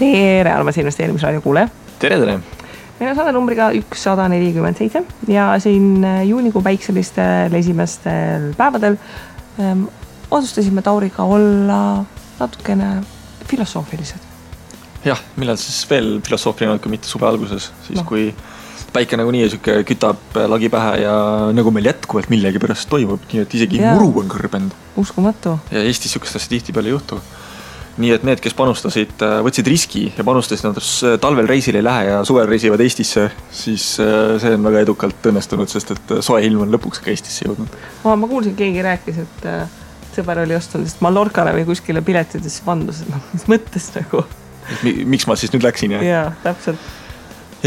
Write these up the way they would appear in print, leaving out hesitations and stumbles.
Tere, armas investeerimisraadio kuule. Tere. Meil on saade numbriga 147 ja siin juunikuu päikselistel esimestel päevadel otsustasime Tauriga olla natukene filosoofilised. Jah, millal siis veel filosoofiline, kui mitte suve alguses, siis kui päike nagu nii kütab lagi pähe ja nagu meil jätkuvalt millegi pärast toimub, nii et isegi muru on kõrbenud. Uskumatu. Ja Eestis sükest asja tihti peale ei juhtu. Nii et need, kes panustasid, võtsid riski ja panustasid, nad talvel reisil ei lähe ja suvel reisivad Eestisse, siis see on väga edukalt õnnestunud, sest et soe ilm on lõpuks ka Eestisse jõudnud. Ma kuulsin, keegi rääkis, et sõber oli ostunud Mallorcale või kuskile piletidesse vandus, mis mõttes nagu. Miks ma siis nüüd läksin? Jaa, täpselt.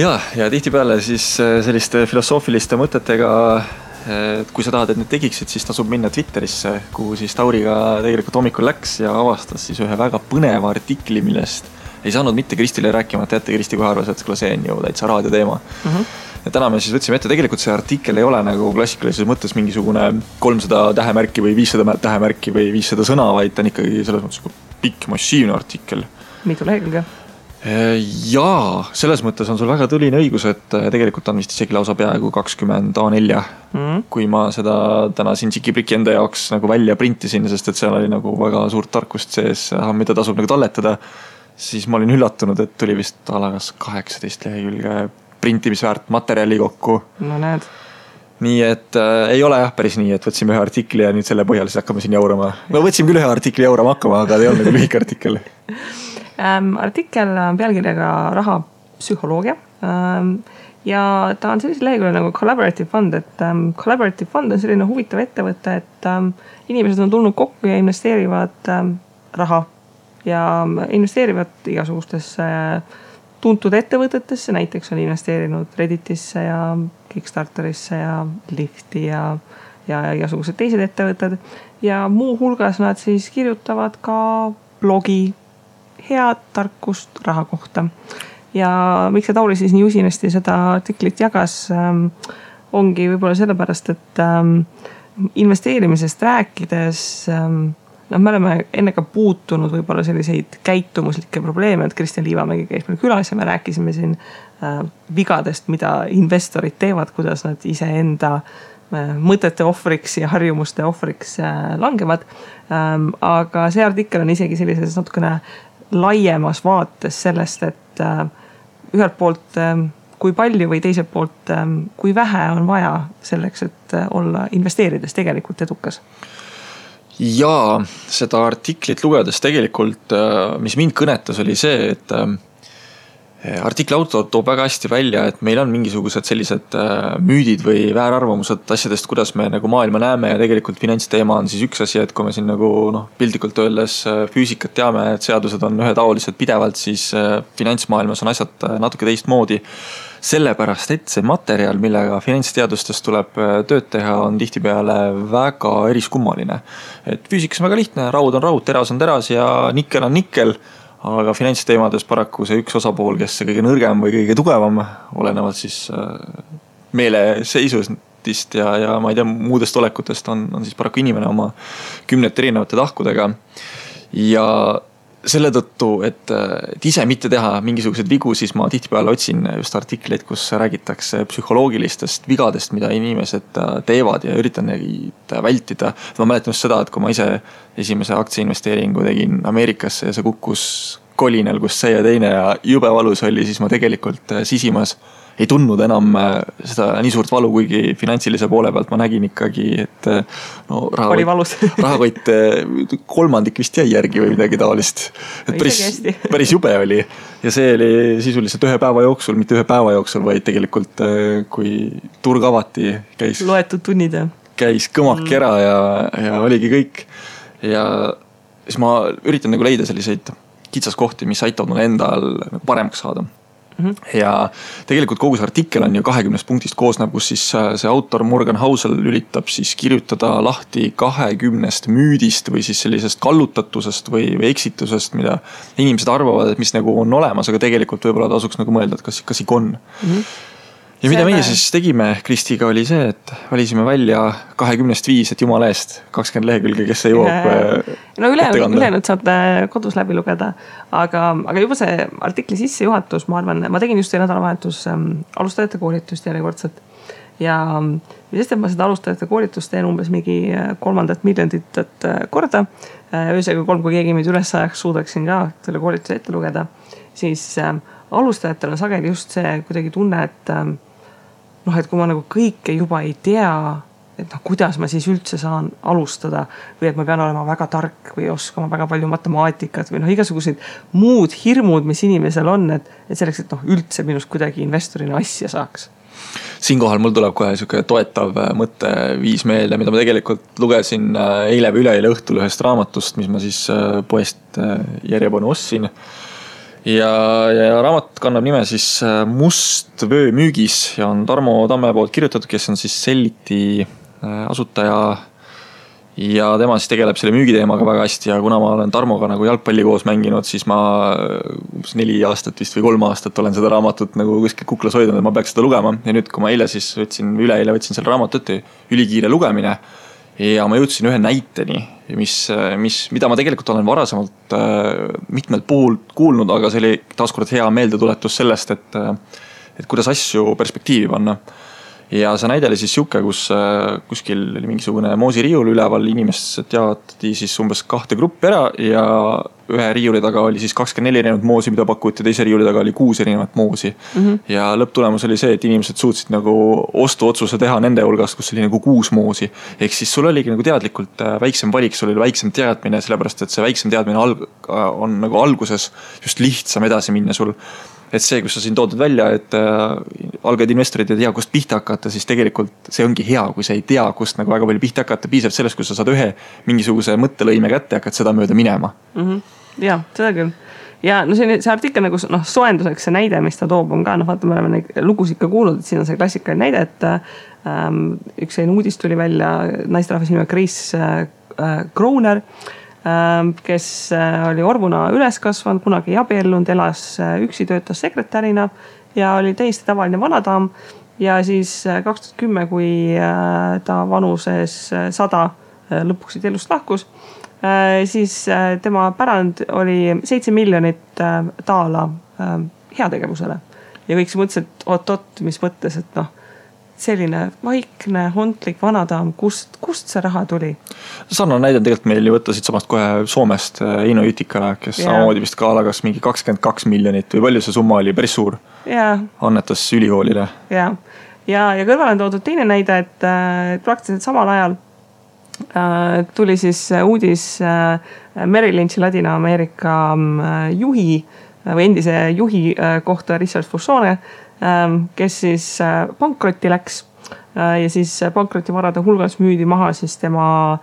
Ja tihti peale siis selliste filosoofiliste mõtetega, et kui sa tahad, et need tegiksid, siis tasub minna Twitterisse, kuhu siis Tauriga tegelikult hommikul läks ja avastas siis ühe väga põneva artikli, millest ei saanud mitte Kristile rääkima, et jätte Kristi kohe arvas, et see on ju täitsa raadioteema. Ja täna me siis võtsime ette, tegelikult see artikkel ei ole nagu klassikalises mõttes mingisugune 300 tähemärki või 500 tähemärki või 500 sõna, vaid ta on ikkagi selles mõttes pikk massiivne artikkel. Mitu lehekülge? Jaa, selles mõttes on sul väga tuline õigus, et tegelikult on vist isegi lausa peaaegu 20 A4, kui ma seda täna siin Tšiki-Priki enda jaoks nagu välja printisin, sest et seal oli nagu väga suurt tarkust sees, mida tasub nagu talletada, siis ma olin üllatunud, et tuli vist alagas 18 lehekülge printimisväärt materjali kokku. No näed. Nii et ei ole jah päris nii, et võtsime ühe artikli ja nüüd selle põhjal siis hakkame siin jaurama. No võtsime küll ühe artikli jaurama hakkama, aga ei olnud nagu lühike artikkel. Artikkel pealkirjaga raha psühholoogia ja ta on sellise lehekülje nagu Collaborative Fund, et Collaborative Fund on selline huvitav ettevõte, et inimesed on tulnud kokku ja investeerivad raha ja investeerivad igasugustesse tuntud ettevõtetesse, näiteks on investeerinud Redditisse ja Kickstarterisse ja Lifti ja igasugused teised ettevõtted ja muu hulgas nad siis kirjutavad ka blogi head tarkust raha kohta. Ja miks see Tauri siis nii usinasti seda artiklit jagas, ongi võib-olla sellepärast, et investeerimisest rääkides, me oleme enne ka puutunud võib-olla selliseid käitumuslikke probleeme, et Kristjan Liivamägi käis meil külas ja me rääkisime siin vigadest, mida investorid teevad, kuidas nad ise enda mõtete ohvriks ja harjumuste ohvriks langevad. Aga see artikkel on isegi sellises natukene laiemas vaates sellest, et ühelt poolt kui palju või teiselt poolt kui vähe on vaja selleks, et olla investeerides tegelikult edukas. Ja seda artiklit lugedes tegelikult, mis mind kõnetas, oli see, et artikli autor toob väga hästi välja, et meil on mingisugused sellised müüdid või väärarvamused asjadest, kuidas me nagu maailma näeme ja tegelikult finantsteema on siis üks asi, et kui me siin nagu pildikult öeldes füüsikat teame, et seadused on ühetaolised pidevalt, siis finantsmaailmas on asjad natuke teistmoodi. Sellepärast, et see materjal, millega finantsteadustest tuleb tööd teha, on tihtipeale väga eriskummaline. Et füüsikas on väga lihtne, raud on raud, teras on teras ja nikkel on nikkel, aga finantsteemades paraku see üks osapool, kes kõige nõrgem või kõige tugevam, olenevalt siis meeleseisustist ja ma ei tea, muudest olekutest on siis paraku inimene oma 10 erinevate tahkudega. Ja selle tõttu, et ise mitte teha mingisugused vigu, siis ma tihtipeale otsin just artikleid, kus räägitakse psühholoogilistest vigadest, mida inimesed teevad ja üritan neid vältida. Ma mäletan just seda, et kui ma ise esimese aktsiainvesteeringu tegin Ameerikasse ja see kukkus kolinal, kus see ja teine ja jube valus oli, siis ma tegelikult sisimas ei tundnud enam seda nii suurt valu, kuigi finantsilise poole pealt ma nägin ikkagi, et rahakott kolmandik vist jäi järgi või midagi taolist. Et päris jube oli. Ja see oli sisuliselt ühe päeva jooksul, mitte ühe päeva jooksul, vaid tegelikult kui turg avati, käis loetud tunnid. Käis kõmak ära ja oligi kõik. Ja siis ma üritan nagu leida selliseid kitsaskohti, mis aitavad mulle endal paremaks saada. Ja tegelikult kogu see artikkel on ju 20 punktist koosneb, kus siis see autor Morgan Housel üritab siis kirjutada lahti 20 müüdist või siis sellisest kallutatusest või eksitusest, mida inimesed arvavad, et mis nagu on olemas, aga tegelikult võib-olla tasuks nagu mõelda, et kas ikka on. ja mida meie siis tegime Kristiga oli see, et valisime välja 20-5, et jumala eest 20 lehekülge, kes ei jõuab no ülejäänud saate kodus läbi lugeda, aga juba see artikli sissejuhatus, ma arvan, ma tegin just see nädalavahetus alustajate koolitust järjekordselt ja sest, et ma seda alustajate koolitust teen umbes mingi 3 miljonit korda, öösega 3, kui keegi meid üles ajaks, suudaksin ka selle koolituse ette lugeda, siis alustajatel on sageli just see kuidagi tunne, et et kui ma nagu kõike juba ei tea, et kuidas ma siis üldse saan alustada või et ma pean olema väga tark või oskama väga palju matemaatikat või igasugused muud hirmud, mis inimesel on, et selleks, et üldse minust kuidagi investorina asja saaks. Siinkohal mul tuleb kohe siuke toetav mõtteviis meelde, mida ma tegelikult lugesin eile või üleeile õhtul ühest raamatust, mis ma siis poest järjepanu ostsin. Ja raamat kannab nime siis Must vöö müügis ja on Tarmo Tamme poolt kirjutatud, kes on siis Selliti asutaja ja tema siis tegeleb selle müügiteemaga väga hästi ja kuna ma olen Tarmoga nagu jalgpalli koos mänginud, siis ma 4 aastat vist või 3 aastat olen seda raamatut nagu kuskil kuklas hoidnud, et ma peaks seda lugema ja nüüd, kui ma eile siis üleeile võtsin selle raamatut ülikiire lugemine ja ma jõudsin ühe näiteni, mida ma tegelikult olen varasemalt mitmelt puhul kuulnud, aga see oli taaskord hea meeldetuletus sellest, et kuidas asju perspektiivi panna. Ja see näide oli siis siuke, kus kuskil oli mingisugune moosiriiul üleval, inimesed jaotati siis umbes 2 gruppi ära ja ühe riiuli taga oli siis 24 erinevat moosi, mida pakuti, teise riiuli taga oli 6 erinevat moosi. Ja lõpptulemus oli see, et inimesed suutsid nagu ostuotsuse teha nende hulgast, kus oli nagu 6 moosi. Ehk siis sul oligi nagu teadlikult väiksem valik, sul oli väiksem teadmine, sellepärast et see väiksem teadmine on nagu alguses just lihtsam edasi minna sul. Et see, kus sa siin toodud välja, et algajad investorid ei tea, kust pihta hakata, siis tegelikult see ongi hea, kui sa ei tea, kust nagu väga palju pihta hakata, piisab sellest, kus sa saad ühe mingisuguse mõttelõime kätte ja hakkad seda mööda minema. Ja, seda küll. Ja no see artikkel nagu soenduseks see näide, mis ta toob, on ka, vaata, me oleme neid lugusid ka kuulnud, et siin on see klassikaline näide, et üks uudis tuli välja naisterahvas nime Chris Kroner, kes oli orvuna üles kasvanud, kunagi ei abiellunud, elas üksi, töötas sekretärina ja oli täiesti tavaline vanadaam ja siis 2010, kui ta vanuses 100 lõpuks elust lahkus, siis tema pärand oli 7 miljonit taala heategevusele ja kõik see mõtles, et oot, mis mõttes, et selline vaikne, hontlik vanadaam, kust see raha tuli? Sarnane näide on tegelikult meil ju võtta siit samast kohe Soomest Eino Jütikale, kes samamoodi vist ka alagas mingi 22 miljonit või palju see summa oli, päris suur. Annetas ülikoolile. Ja kõrval on toodud teine näide, et praktiliselt samal ajal tuli siis uudis Merrill Lynch'i Ladina-Ameerika juhi või endise juhi kohta Richard Fussone, kes siis pankrotti läks ja siis pankrotivarade hulgas müüdi maha siis tema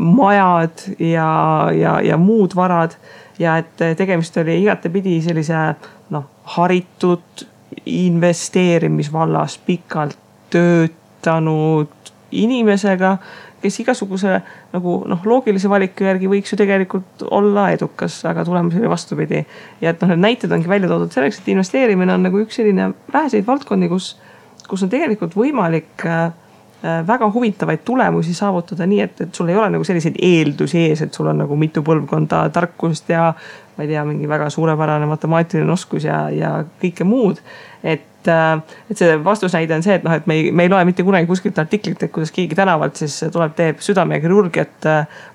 majad ja muud varad ja et tegemist oli igatepidi sellise haritud investeerimisvallas pikalt töötanud inimesega, kes igasuguse nagu loogilise valiku järgi võiks ju tegelikult olla edukas, aga tulemus oli vastupidi. Ja et need näited ongi välja toodud selleks, et investeerimine on nagu üks selline väheseid valdkondi, kus on tegelikult võimalik väga huvitavaid tulemusi saavutada nii, et sul ei ole nagu selliseid eeldusi ees, et sul on nagu mitu põlvkonda tarkust ja ma ei tea, mingi väga suurepärane matemaatiline oskus ja kõike muud. Et see vastusnäide on see, et me ei loe mitte kunagi kuskilt artiklit, et kuidas keegi tänavalt siis tuleb, teeb südame ja kirurgiat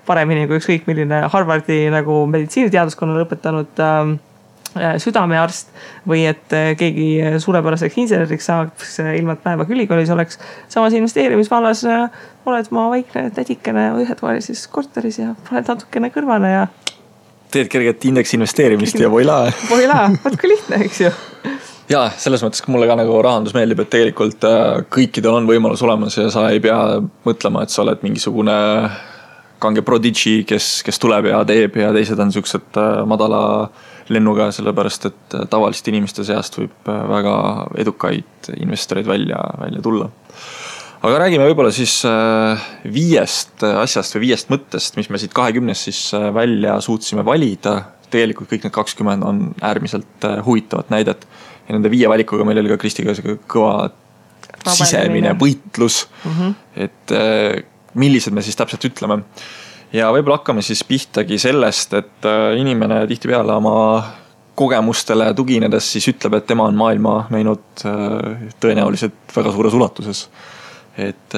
paremini kui ükskõik milline Harvardi nagu meditsiiniteaduskonna lõpetanud südamearst või et keegi suurepäraseks inseneriks saaks ilma päeva ülikoolis oleks. Samas investeerimisvallas oled ma vaikne tädikene ühetoalises korteris ja oled natukene kõrvale ja teed kerget indeks investeerimist ja voila. Voila, võtku lihtne, eks ju. Ja selles mõttes, kui mulle ka nagu rahandus meeldib, et tegelikult kõikidel on võimalus olemas ja sa ei pea mõtlema, et sa oled mingisugune kange prodigy, kes tuleb ja teeb ja teised on siuksed madala lennuga, sellepärast et tavaliste inimeste seast võib väga edukaid investoreid välja tulla. Aga räägime võib-olla siis 5 asjast või 5 mõttest, mis me siit 20 siis välja suutsime valida. tegelikult kõik need 20 on äärmiselt huvitavat näidet. Ja nende 5 valikuga meil oli ka Kristiga kõva sisemine võitlus, et millised me siis täpselt ütleme. Ja võib-olla hakkame siis pihtagi sellest, et inimene tihtipeale oma kogemustele tuginedes siis ütleb, et tema on maailma näinud tõenäoliselt väga suures ulatuses. Et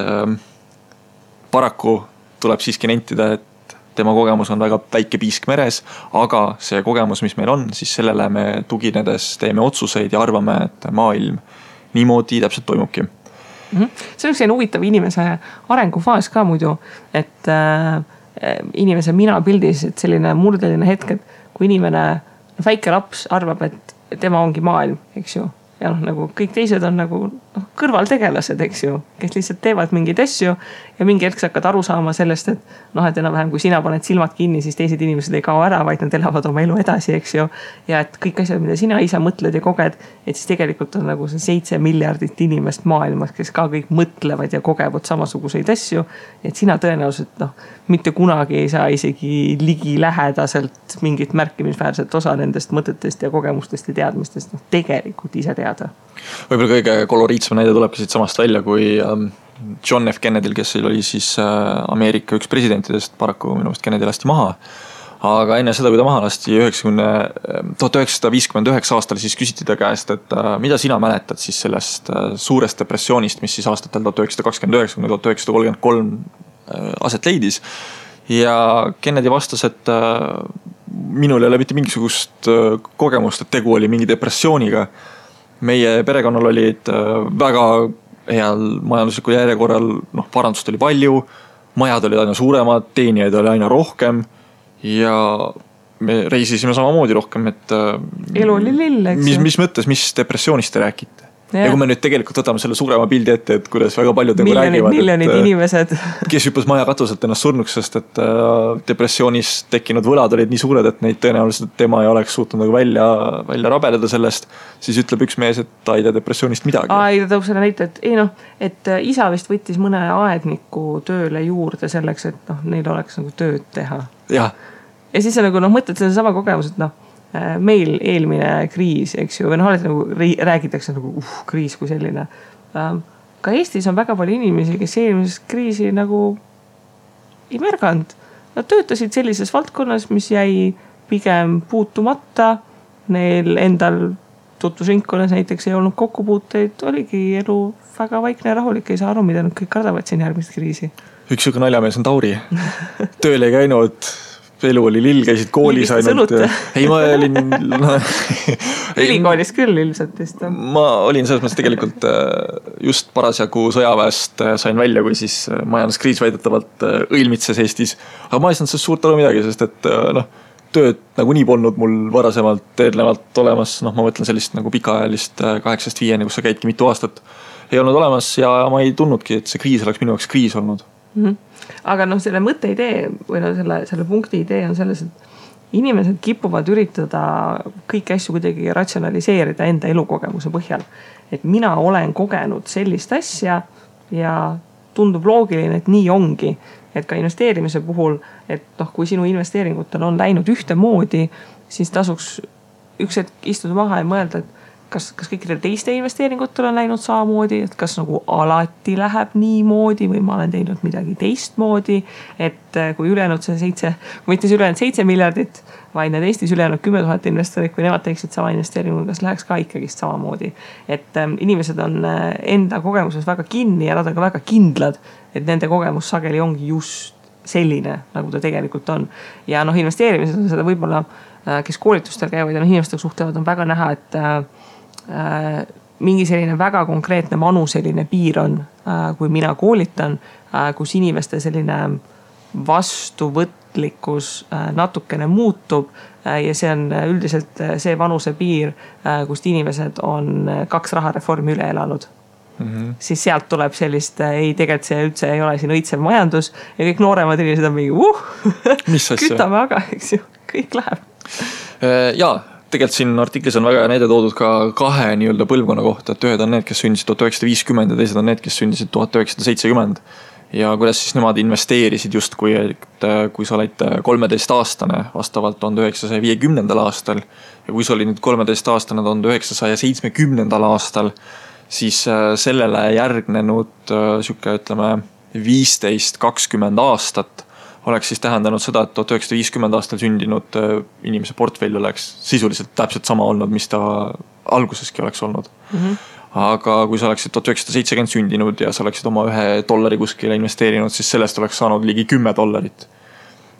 paraku tuleb siiski nentida, et tema kogemus on väga väike piisk meres, aga see kogemus, mis meil on, siis sellele me tuginedes teeme otsuseid ja arvame, et maailm niimoodi täpselt toimubki. See on üks huvitav inimese arengufaas ka muidu, et inimese mina pildis, et selline murdeline hetk, et kui inimene, väike laps arvab, et tema ongi maailm, eks ju. Ja nagu kõik teised on nagu kõrvaltegelased, eks ju, kes lihtsalt teevad mingeid asju ja mingi hetk sa hakkad aru saama sellest, et et enam-vähem kui sina paned silmad kinni, siis teised inimesed ei kao ära, vaid nad elavad oma elu edasi, eks ju. Ja et kõik asjad, mida sina ise mõtled ja koged, et siis tegelikult on nagu see 7 miljardit inimest maailmas, kes ka kõik mõtlevad ja kogevad samasuguseid asju. Et sina tõenäoliselt mitte kunagi ei saa isegi ligi lähedaselt mingit märkimisväärset osa nendest mõtetest ja kogemustest ja teadmistest tegelikult ise teada. Võib-olla kõige koloriitsem näide tuleb siit samast välja, kui John F. Kennedyl, kes oli siis Ameerika üks presidentidest, paraku minu meelest Kennedy lasti maha. Aga enne seda, kui ta maha lasti 1959 aastal, siis küsiti ta käest, et mida sina mäletad siis sellest suurest depressioonist, mis siis aastatel 1929-1933 aset leidis. Ja Kennedy vastas, et minul ei ole mitte mingisugust kogemust, et tegu oli mingi depressiooniga. Meie perekonnal olid väga heal majanduslikul järjekorral, parandust oli palju, majad olid aina suuremad, teenijaid oli aina rohkem ja me reisisime samamoodi rohkem, et elu oli lill, eks mis mõttes, mis depressioonist te räägite? Ja kui me nüüd tegelikult võtame selle suurema pildi ette, et kuidas väga paljud räägivad, miljonid inimesed, kes hüppas maja katuselt ennast surnuks, sest et depressioonis tekkinud võlad olid nii suured, et neid tõenäoliselt tema ei oleks suutnud nagu välja rabeleda sellest, siis ütleb üks mees, et ta ei tea depressioonist midagi. Ei, ta tõub selle näite, et isa vist võttis mõne aedniku tööle juurde selleks, et neil oleks nagu tööd teha. Ja siis sa nagu mõtled selle sama kogemus, et meil eelmine kriis, eks ju, või alati nagu räägitakse nagu kriis kui selline. Ka Eestis on väga palju inimesi, kes eelmisest kriisi nagu ei märganud. Nad töötasid sellises valdkonnas, mis jäi pigem puutumata. Neil endal tutvusringkonnas näiteks ei olnud kokkupuuteid, oligi elu väga vaikne ja rahulik, ei saa aru, mida nad kõik kardavad siin järgmist kriisi. Üks siuke naljamees on Tauri. Tööl ei käinud, elu oli lill, käisid koolis ainult. Ei, ma olin ülikoolis küll ilmselt vist. Ma olin selles mõttes tegelikult just parasjagu sõjaväest sain välja, kui siis majanduskriis väidetavalt õilmitses Eestis. Aga ma ei saanud sellest suurt aru midagi, sest et tööd nagu nii polnud mul varasemalt eelnevalt olemas. Ma mõtlen sellist nagu pikaajalist 8-5, kus sa käidki mitu aastat. Ei olnud olemas ja ma ei tundnudki, et see kriis oleks minu jaoks kriis olnud. Aga selle mõtte idee või selle punkti idee on selles, et inimesed kipuvad üritada kõiki asju kuidagi ratsionaliseerida enda elukogemuse põhjal. Et mina olen kogenud sellist asja ja tundub loogiline, et nii ongi. Et ka investeerimise puhul, et kui sinu investeeringutel on läinud ühte moodi, siis tasuks üks hetk istuda maha ja mõelda, et kas kõikidel teiste investeeringutel on läinud samamoodi, et kas nagu alati läheb nii moodi või ma olen teinud midagi teistmoodi, et kui ülejäänud mitte ülejäänud 7 miljardit, vaid need Eestis ülejäänud 10 000 investorit, kui nemad teeksid sama investeeringu, kas läheks ka ikkagist samamoodi. Et inimesed on enda kogemuses väga kinni ja nad on ka väga kindlad, et nende kogemus sageli ongi just selline, nagu ta tegelikult on. Ja investeerimises on seda võib-olla, kes koolitustel käivad ja inimestega suhtlevad, on väga näha, et mingi selline väga konkreetne vanuseline piir on, kui mina koolitan, kus inimeste selline vastuvõtlikkus natukene muutub ja see on üldiselt see vanuse piir, kust inimesed on 2 rahareformi üle elanud. Siis sealt tuleb sellist, ei tegelikult see üldse ei ole siin õitsev majandus ja kõik nooremad inimesed on mingi kütame aga, eks ju, kõik läheb. Jaa, tegelikult siin artiklis on väga näide toodud ka 2 nii-öelda põlvkonna kohta, et ühed on need, kes sündisid 1950 ja teised on need, kes sündisid 1970. ja kuidas siis nemad investeerisid justkui, et kui sa olid 13-aastane vastavalt 1950. aastal ja kui sa olid nüüd 13-aastane 1970. aastal, siis sellele järgnenud siuke, ütleme, 15-20 aastat oleks siis tähendanud seda, et 1950 aastal sündinud inimese portfell oleks sisuliselt täpselt sama olnud, mis ta alguseski oleks olnud. Aga kui sa oleksid 1970 sündinud ja sa oleksid oma $1 kuskile investeerinud, siis sellest oleks saanud ligi $10.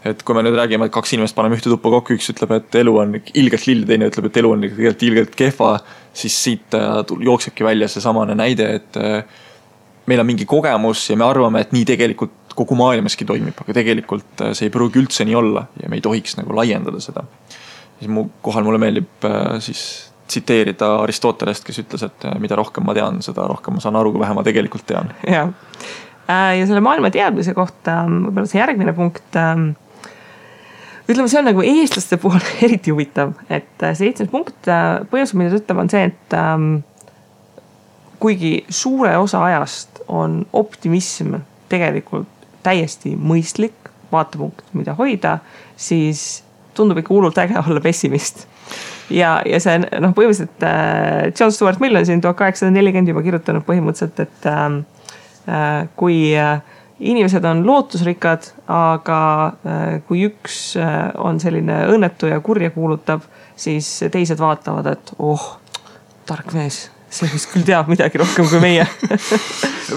Et kui me nüüd räägime, et 2 inimest paneme ühte tuppa kokku, üks ütleb, et elu on ilgelt lill, teine ütleb, et elu on ilgelt kehva, siis siit jooksebki välja see samane näide, et meil on mingi kogemus ja me arvame, et nii tegelikult kogu maailmaski toimib, aga tegelikult see ei pruugi üldse nii olla ja me ei tohiks nagu laiendada seda. Siis mulle meeldib siis tsiteerida Aristotelest, kes ütles, et mida rohkem ma tean, seda rohkem ma saan aru, kui vähe ma tegelikult tean. Ja selle maailma teadmise kohta võib-olla see järgmine punkt, ütleme, see on nagu eestlaste puhul eriti huvitav, et see 7. punkt põhjusel, mida ta ütleb, on see, et kuigi suure osa ajast on optimism tegelikult täiesti mõistlik vaatepunkt, mida hoida, siis tundub ikka hullult äge olla pessimist. Ja see põhimõtteliselt John Stuart Mill on siin 1840 juba kirjutanud põhimõtteliselt, et kui inimesed on lootusrikkad, aga kui üks on selline õnnetu ja kurja kuulutab, siis teised vaatavad, et tark mees, see vist küll teab midagi rohkem kui meie.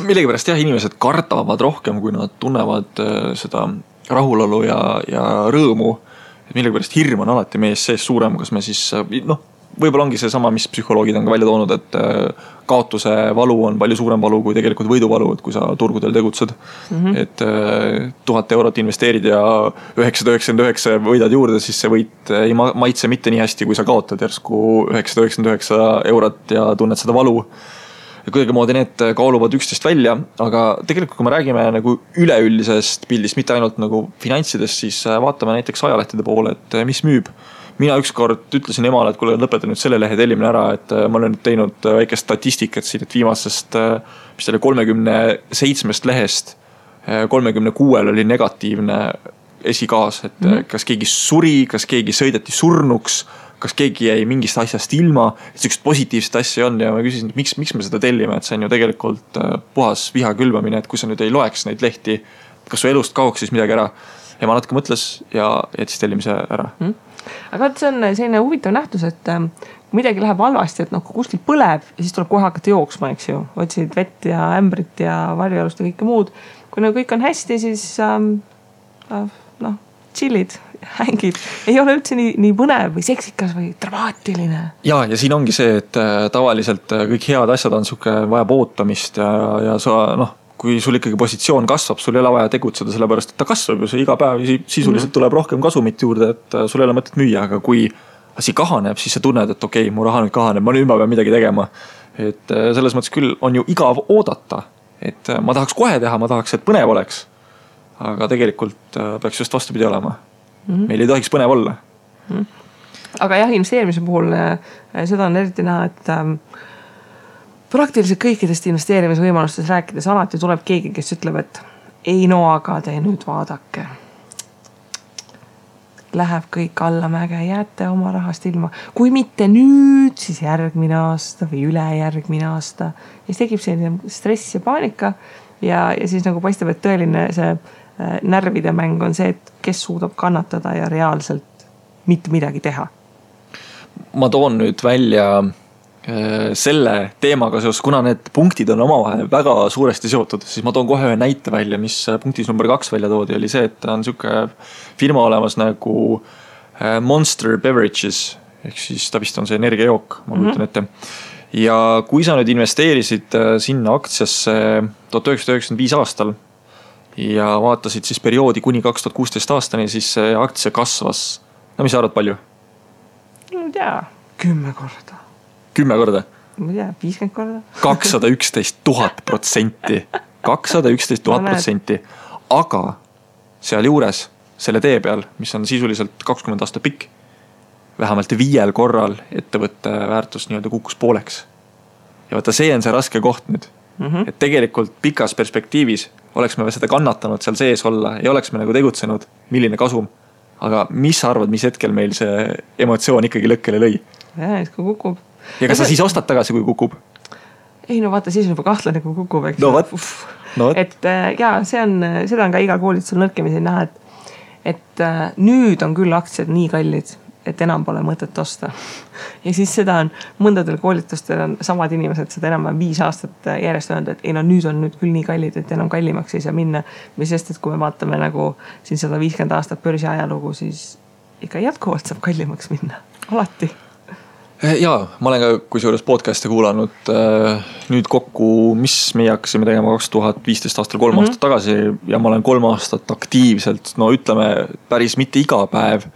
Millegipärast inimesed kardavad rohkem, kui nad tunnevad seda rahulolu ja rõõmu. Et millegipärast hirm on alati mees sees suurem, kas me siis, võib-olla ongi see sama, mis psühholoogid on ka välja toonud, et kaotuse valu on palju suurem valu kui tegelikult võiduvalu, et kui sa turgudel tegutsed. Et 1000 eurot investeerid ja 999 võidad juurde, siis see võit ei maitse mitte nii hästi, kui sa kaotad järsku 999 eurot ja tunned seda valu. Ja kuidagimoodi need kaaluvad üksteist välja, aga tegelikult kui me räägime nagu üleüldisest pildist, mitte ainult nagu finantsidest, siis vaatame näiteks ajalehtede poole, et mis müüb. Mina ükskord ütlesin emale, et kuule, lõpetan nüüd selle lehe tellimine ära, et ma olen nüüd teinud väike statistikat siin, et viimasest, mis selle 37 lehest 36 oli negatiivne esikaas, et kas keegi suri, kas keegi sõideti surnuks, kas keegi jäi mingist asjast ilma, et sellised positiivsed asja on ja ma küsisin, et miks me seda tellime, et see on ju tegelikult puhas viha külvamine, et kui sa nüüd ei loeks neid lehti, kas su elust kaoks siis midagi ära. Ja ma natuke mõtles ja jättis tellimise ära. Aga see on selline huvitav nähtus, et kui midagi läheb halvasti, et kui kuskil põleb ja siis tuleb kohe hakata jooksma, eks ju. Otsid vett ja ämbrit ja varjualust ja kõike muud. Kui kõik on hästi, siis chillid, hängid. Ei ole üldse nii põnev või seksikas või dramaatiline. Ja siin ongi see, et tavaliselt kõik head asjad on suke vajab ootamist ja sa, kui sul ikkagi positsioon kasvab, sul ei ole vaja tegutseda, sellepärast, et ta kasvab ju see iga päev sisuliselt tuleb rohkem kasumit juurde, et sul ei ole mõtet müüa, aga kui asi kahaneb, siis sa tunned, et okei, mu raha nüüd kahaneb, ma pean midagi tegema. Et selles mõttes küll on ju igav oodata, et ma tahaks kohe teha, ma tahaks, et põnev oleks. Aga tegelikult peaks just vastupidi olema. Meil ei tohiks põnev olla. Aga investeerimise puhul seda on eriti näha, et praktiliselt kõikidest investeerimisvõimalustest rääkides alati tuleb keegi, kes ütleb, et ei aga te nüüd vaadake. Läheb kõik allamäge, jääte oma rahast ilma. Kui mitte nüüd, siis järgmine aasta või ülejärgmine aasta. Ja siis tekib selline stress ja paanika ja siis nagu paistab, et tõeline see närvide mäng on see, et kes suudab kannatada ja reaalselt mitte midagi teha. Ma toon nüüd välja selle teemaga seos, kuna need punktid on omavahel väga suuresti seotud, siis ma toon kohe ühe näite välja, mis punktis number 2 välja toodi, oli see, et on siuke firma olemas nagu Monster Beverages, ehk siis ta vist on see energiajook, ma kujutan ette. Ja kui sa nüüd investeerisid sinna aktsiasse 1995 aastal ja vaatasid siis perioodi kuni 2016 aastani, siis see aktsia kasvas. No mis sa arvad palju? No ei tea, 10 korda. 10 korda? Ma ei tea, 50 korda. 211,000%. 211,000%. Aga seal juures, selle tee peal, mis on sisuliselt 20 aasta pikk, vähemalt 5 korral ettevõtte väärtus nii-öelda kukkus pooleks. Ja vaata, see on see raske koht nüüd. Et tegelikult pikas perspektiivis oleks me seda kannatanud seal sees olla ja oleks me nagu tegutsenud, milline kasum. Aga mis sa arvad, mis hetkel meil see emotsioon ikkagi lõkkele lõi? Ja, et kui kukub. Ja kas sa siis ostad tagasi, kui kukub? Ei, no vaata, siis on juba kahtlane, kui kukub, eks. No, et ja seda on ka igal koolitusel nõrkemisel näha, et nüüd on küll aktsiad nii kallid, et enam pole mõtet osta. Ja siis seda on mõndadel koolitustel on samad inimesed seda enam 5 aastat järjest öelnud, et ei no nüüd on nüüd küll nii kallid, et enam kallimaks ei saa minna. Mis sest, et kui me vaatame nagu siin 150 aastat börsi ajalugu, siis ikka jätkuvalt saab kallimaks minna. Alati. Jaa, ma olen ka kusjuures podcast'e kuulanud nüüd kokku, mis meie hakkasime tegema 2015 aastal 3 aastat tagasi ja ma olen 3 aastat aktiivselt, no ütleme päris mitte iga päev,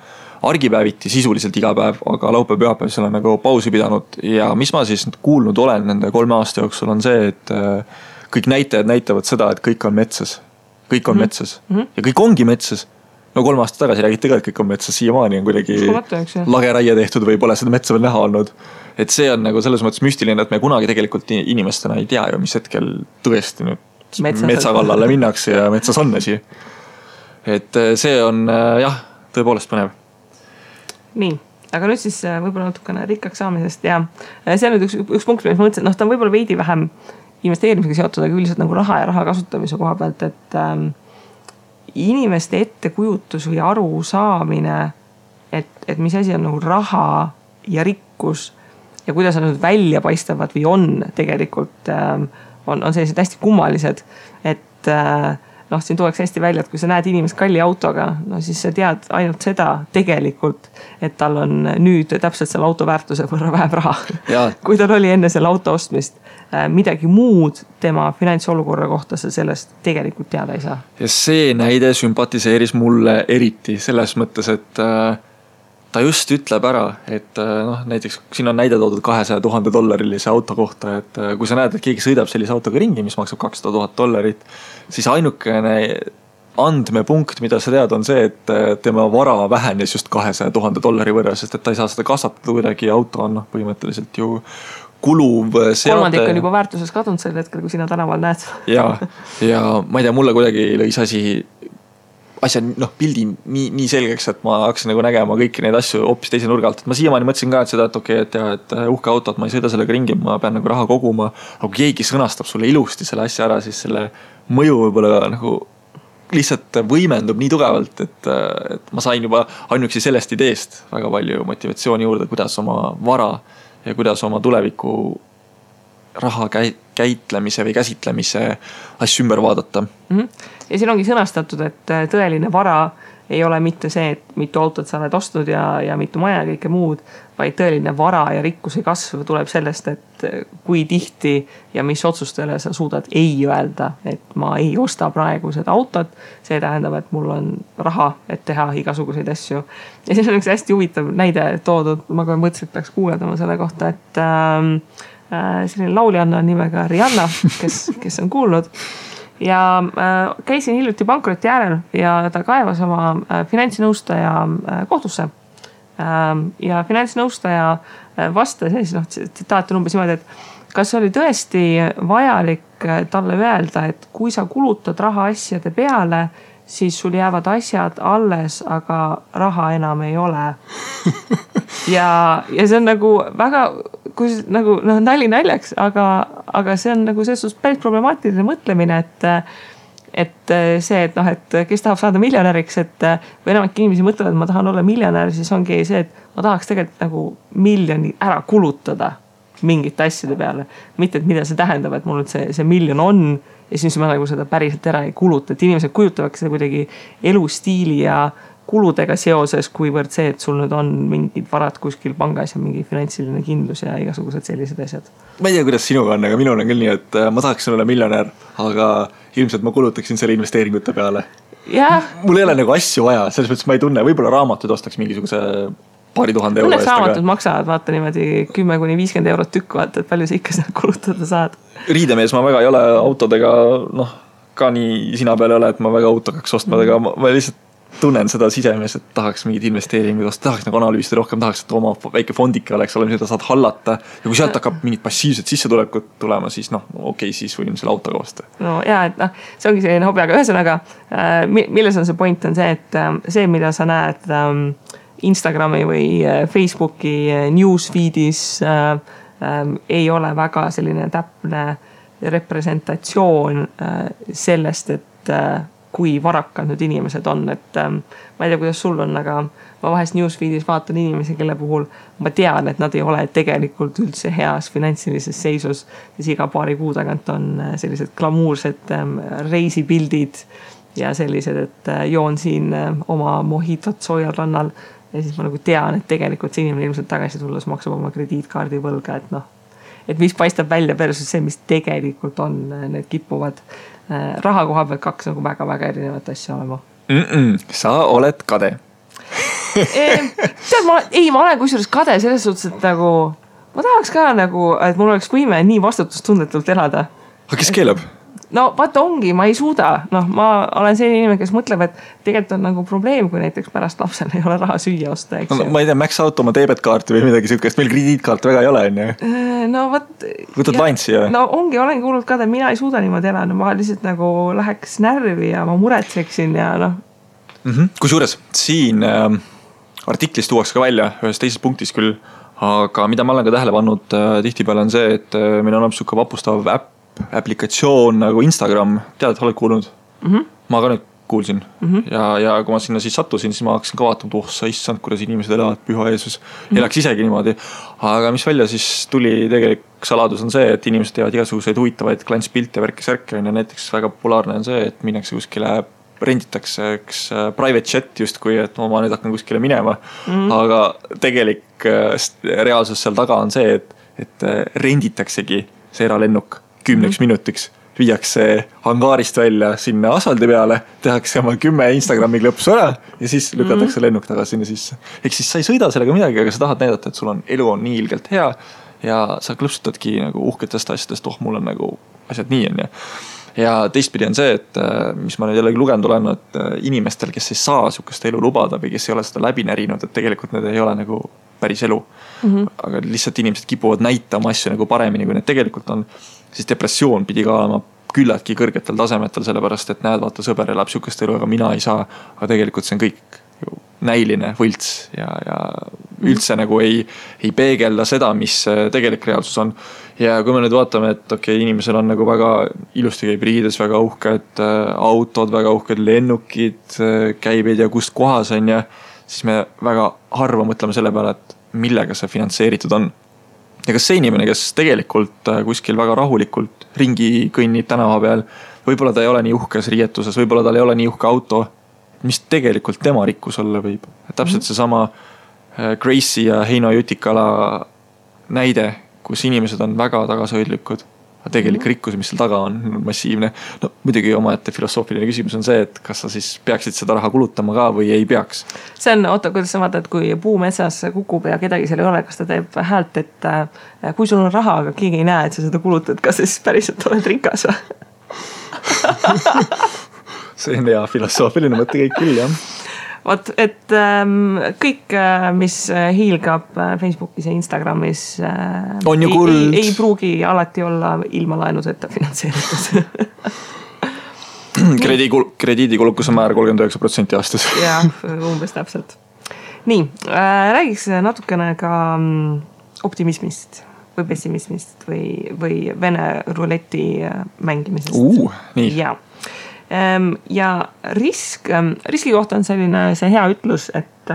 argipäeviti sisuliselt iga päev, aga laupäev pühapäev seal on nagu pausi pidanud ja mis ma siis kuulnud olen nende 3 aasta jooksul on see, et kõik näitajad näitavad seda, et kõik on metsas. Kõik on metsas ja kõik ongi metsas. No 3 aastat tagasi räägiti ka, et kõik on metsas, siiamaani on kuidagi lageraie tehtud või pole seda metsa veel näha olnud. Et see on nagu selles mõttes müstiline, et me kunagi tegelikult inimestena ei tea ju, mis hetkel tõesti nüüd metsa kallale minnakse ja metsas on asi. Et see on jah, tõepoolest põnev. Nii, aga nüüd siis võib-olla natukene rikkaks saamisest ja see on nüüd üks punkt, mis ma mõtlesin, ta on võib-olla veidi vähem investeerimisega seotud, aga üldiselt nagu raha ja raha kasutamise koha pealt, et inimeste ettekujutus või aru saamine, et mis asi on nagu raha ja rikkus ja kuidas nad välja paistavad või on tegelikult, on sellised hästi kummalised, et siin tuleks hästi välja, et kui sa näed inimest kalli autoga, no siis sa tead ainult seda tegelikult, et tal on nüüd täpselt selle auto väärtuse võrra vähem raha. Kui tal oli enne selle auto ostmist midagi muud tema finantsolukorra kohta sa sellest tegelikult teada ei saa. Ja see näide sümpatiseeris mulle eriti selles mõttes, et ta just ütleb ära, et näiteks siin on näide toodud $200,000 auto kohta, et kui sa näed, et keegi sõidab sellise autoga ringi, mis maksab $200,000, siis ainukene andmepunkt, mida sa tead, on see, et tema vara vähenes just $200,000 võrra, sest et ta ei saa seda kasvatada kuidagi, auto on põhimõtteliselt ju kuluv seade. Kolmandik on juba väärtuses kadunud sel hetkel, kui sina tänaval näed. Ja ma ei tea, mulle kuidagi lõis asja pildi nii selgeks, et ma hakkasin nagu nägema kõiki neid asju hoopis teise nurga alt. Ma siiamaani mõtlesin ka, et seda, et okei, et uhke autot, ma ei sõida sellega ringi, ma pean nagu raha koguma. Aga kui keegi sõnastab sulle ilusti selle asja ära, siis selle mõju võib-olla nagu lihtsalt võimendub nii tugevalt, et ma sain juba ainuüksi sellest ideest väga palju motivatsiooni juurde, kuidas oma vara ja kuidas oma tuleviku raha käitlemise või käsitlemise asju ümber vaadata. Ja siin ongi sõnastatud, et tõeline vara ei ole mitte see, et mitu autot sa oled ostnud ja mitu maja ja kõike muud, vaid tõeline vara ja rikkuse kasv tuleb sellest, et kui tihti ja mis otsustele sa suudad ei öelda, et ma ei osta praegu seda autot, see tähendab, et mul on raha, et teha igasuguseid asju. Ja siis on üks hästi huvitav näide toodud, ma kohe mõtlesin, et peaks kuuldama selle kohta, et selline lauljanna nimega Rihanna, kes on kuulnud. Ja käisin hiljuti pankroti äärel ja ta kaevas oma finantsinõustaja kohtusse. Ja finantsinõustaja vastas tsitaat on umbes niimoodi, et kas oli tõesti vajalik talle öelda, et kui sa kulutad raha asjade peale, siis sul jäävad asjad alles, aga raha enam ei ole. Ja see on nagu väga, kui nagu nali naljaks, aga see on nagu selles suhtes päris problemaatiline mõtlemine, et see, et kes tahab saada miljonäriks, või enamik inimesi mõtlevad, et ma tahan olla miljonär, siis ongi see, et ma tahaks tegelikult nagu miljoni ära kulutada mingite asjade peale. Mitte, et mida see tähendab, et mul see miljon on ja siis ma nagu seda päriselt ära ei kuluta. Et inimesed kujutavaks seda kuidagi elustiili ja kuludega seoses, kuivõrd see, et sul nüüd on mingid varad kuskil pangas ja mingi finantsiline kindlus ja igasugused sellised asjad. Ma ei tea, kuidas sinuga on, aga minul on küll nii, et ma tahaksin olla miljonär, aga ilmselt ma kulutaksin selle investeeringute peale. Mul ei ole nagu asju vaja, selles mõttes ma ei tunne, võib-olla raamatud ostaks mingisuguse paari tuhande euro. Õnneks raamatud maksavad, vaata niimoodi 10-50 eurot tükk, vaata, et palju sa ikka seda kulutada saad. Riidemees ma väga ei ole autodega, ka nii sina peal ei ole, et ma väga autokaks ostma, aga ma lihtsalt tunnen seda sisemes, et tahaks mingid investeeringud osta, tahaks nagu analüüsida rohkem, tahaks, et oma väike fondike oleks, mida saad hallata. Ja kui sealt hakkab mingid passiivsed sissetulekut tulema, siis okei, siis võin selle autoga osta. No jaa, et see ongi selline hobi, aga ühesõnaga, milles on see point on see, et see, mida sa näed Instagrami või Facebooki newsfeedis ei ole väga selline täpne representatsioon sellest, et kui varakad nüüd inimesed on, et ma ei tea, kuidas sul on, aga ma vahest newsfeedis vaatan inimesi, kelle puhul ma tean, et nad ei ole tegelikult üldse heas finantsilises seisus, siis iga paari kuu tagant on sellised glamuursed reisipildid ja sellised, et joon siin oma mohitot soojal rannal ja siis ma nagu tean, et tegelikult see inimene ilmselt tagasi tulles maksab oma krediitkaardi võlga, et mis paistab välja versus see, mis tegelikult on, need kipuvad raha koha pealt kaks nagu väga-väga erinevat asja olema. Sa oled kade. Tead, ma olen kusjuures kade selles suhtes, et nagu ma tahaks ka nagu, et mul oleks võime nii vastutustundetult elada. Aga kes keelab? No vaata ongi, ma ei suuda. Ma olen selline inimene, kes mõtleb, et tegelikult on nagu probleem, kui näiteks pärast lapsel ei ole raha süüa osta. Ma ei tea, Max Out oma debetkaarti või midagi sükest, meil krediitkaart väga ei ole. No võt... Võtad lainsi ja... No ongi, olengi kuulnud ka, et mina ei suuda niimoodi elada. Ma lihtsalt nagu läheks närvi ja ma muretseksin ja Kusjuures siin artiklis tuuaks ka välja ühes teises punktis küll, aga mida ma olen ka tähele pannud tihtipeale on see, et meil on suke vapustav aplikatsioon nagu Instagram, tead, et oled kuulnud? Ma ka nüüd kuulsin ja kui ma sinna siis sattusin, siis ma hakkasin ka vaatama, sa issand, kuidas inimesed elavad, püha Jeesus, elaks isegi niimoodi. Aga mis välja siis tuli tegelik saladus on see, et inimesed teevad igasuguseid huvitavaid klantspilte ja värkisärke ja näiteks väga populaarne on see, et minnakse kuskile renditakse üks private chat justkui, et ma nüüd hakkan kuskile minema. Aga tegelik reaalsus seal taga on see, et renditaksegi see eralennuk 10 minutiks, viiakse hangaarist välja sinna asfaldi peale, tehakse oma 10 Instagrami klõpsu ära ja siis lükatakse lennuk tagasi sinna sisse. Ehk siis sa ei sõida sellega midagi, aga sa tahad näidata, et sul on elu on nii ilgelt hea ja sa klõpsutadki nagu uhketest asjadest, mul on nagu asjad nii on ja teistpidi on see, et mis ma nüüd jällegi lugenud olen, et inimestel, kes ei saa sukest elu lubada või kes ei ole seda läbi närinud, et tegelikult need ei ole nagu päris elu. Aga lihtsalt inimesed kipuvad näitama asju nagu paremini, kui need tegelikult on, siis depressioon pidi ka olema küllaltki kõrgetel tasemetel, sellepärast, et näed, vaata, sõber elab sukest elu, aga mina ei saa, aga tegelikult see on kõik näiline võlts ja üldse nagu ei peegelda seda, mis tegelik reaalsus on. Ja kui me nüüd vaatame, et okei, inimesel on nagu väga ilusti käib riides, väga uhked autod, väga uhked lennukid, käibed ja kust kohas on ja siis me väga harva mõtleme selle peale, et millega see finantseeritud on. Ja kas see inimene, kes tegelikult kuskil väga rahulikult ringi kõnnib tänava peal, võib-olla ta ei ole nii uhkes riietuses, võib-olla tal ei ole nii uhke auto, mis tegelikult tema rikkus olla võib. Täpselt seesama Gracie ja Heino Jutikala näide, kus inimesed on väga tagasihoidlikud, aga tegelik rikkus, mis seal taga on massiivne. No muidugi omaette filosoofiline küsimus on see, et kas sa siis peaksid seda raha kulutama ka või ei peaks. See on, kuidas sa vaatad, kui puu metsas kukub ja kedagi seal ei ole, kas ta teeb häält, et kui sul on raha, aga keegi ei näe, et sa seda kulutad, kas siis päriselt oled rikas või? See on hea filosoofiline mõte kõik küll, jah. Vot, et kõik, mis hiilgab Facebookis ja Instagramis on ju kuld. Ei pruugi alati olla ilma laenuseta finantseeritud. Krediidikulukuse määr 39% aastas. Jah, umbes täpselt. Nii, räägiks natukene ka optimismist või pessimismist või Vene ruleti mängimisest. Nii. Ja. Ja riski kohta on see hea ütlus, et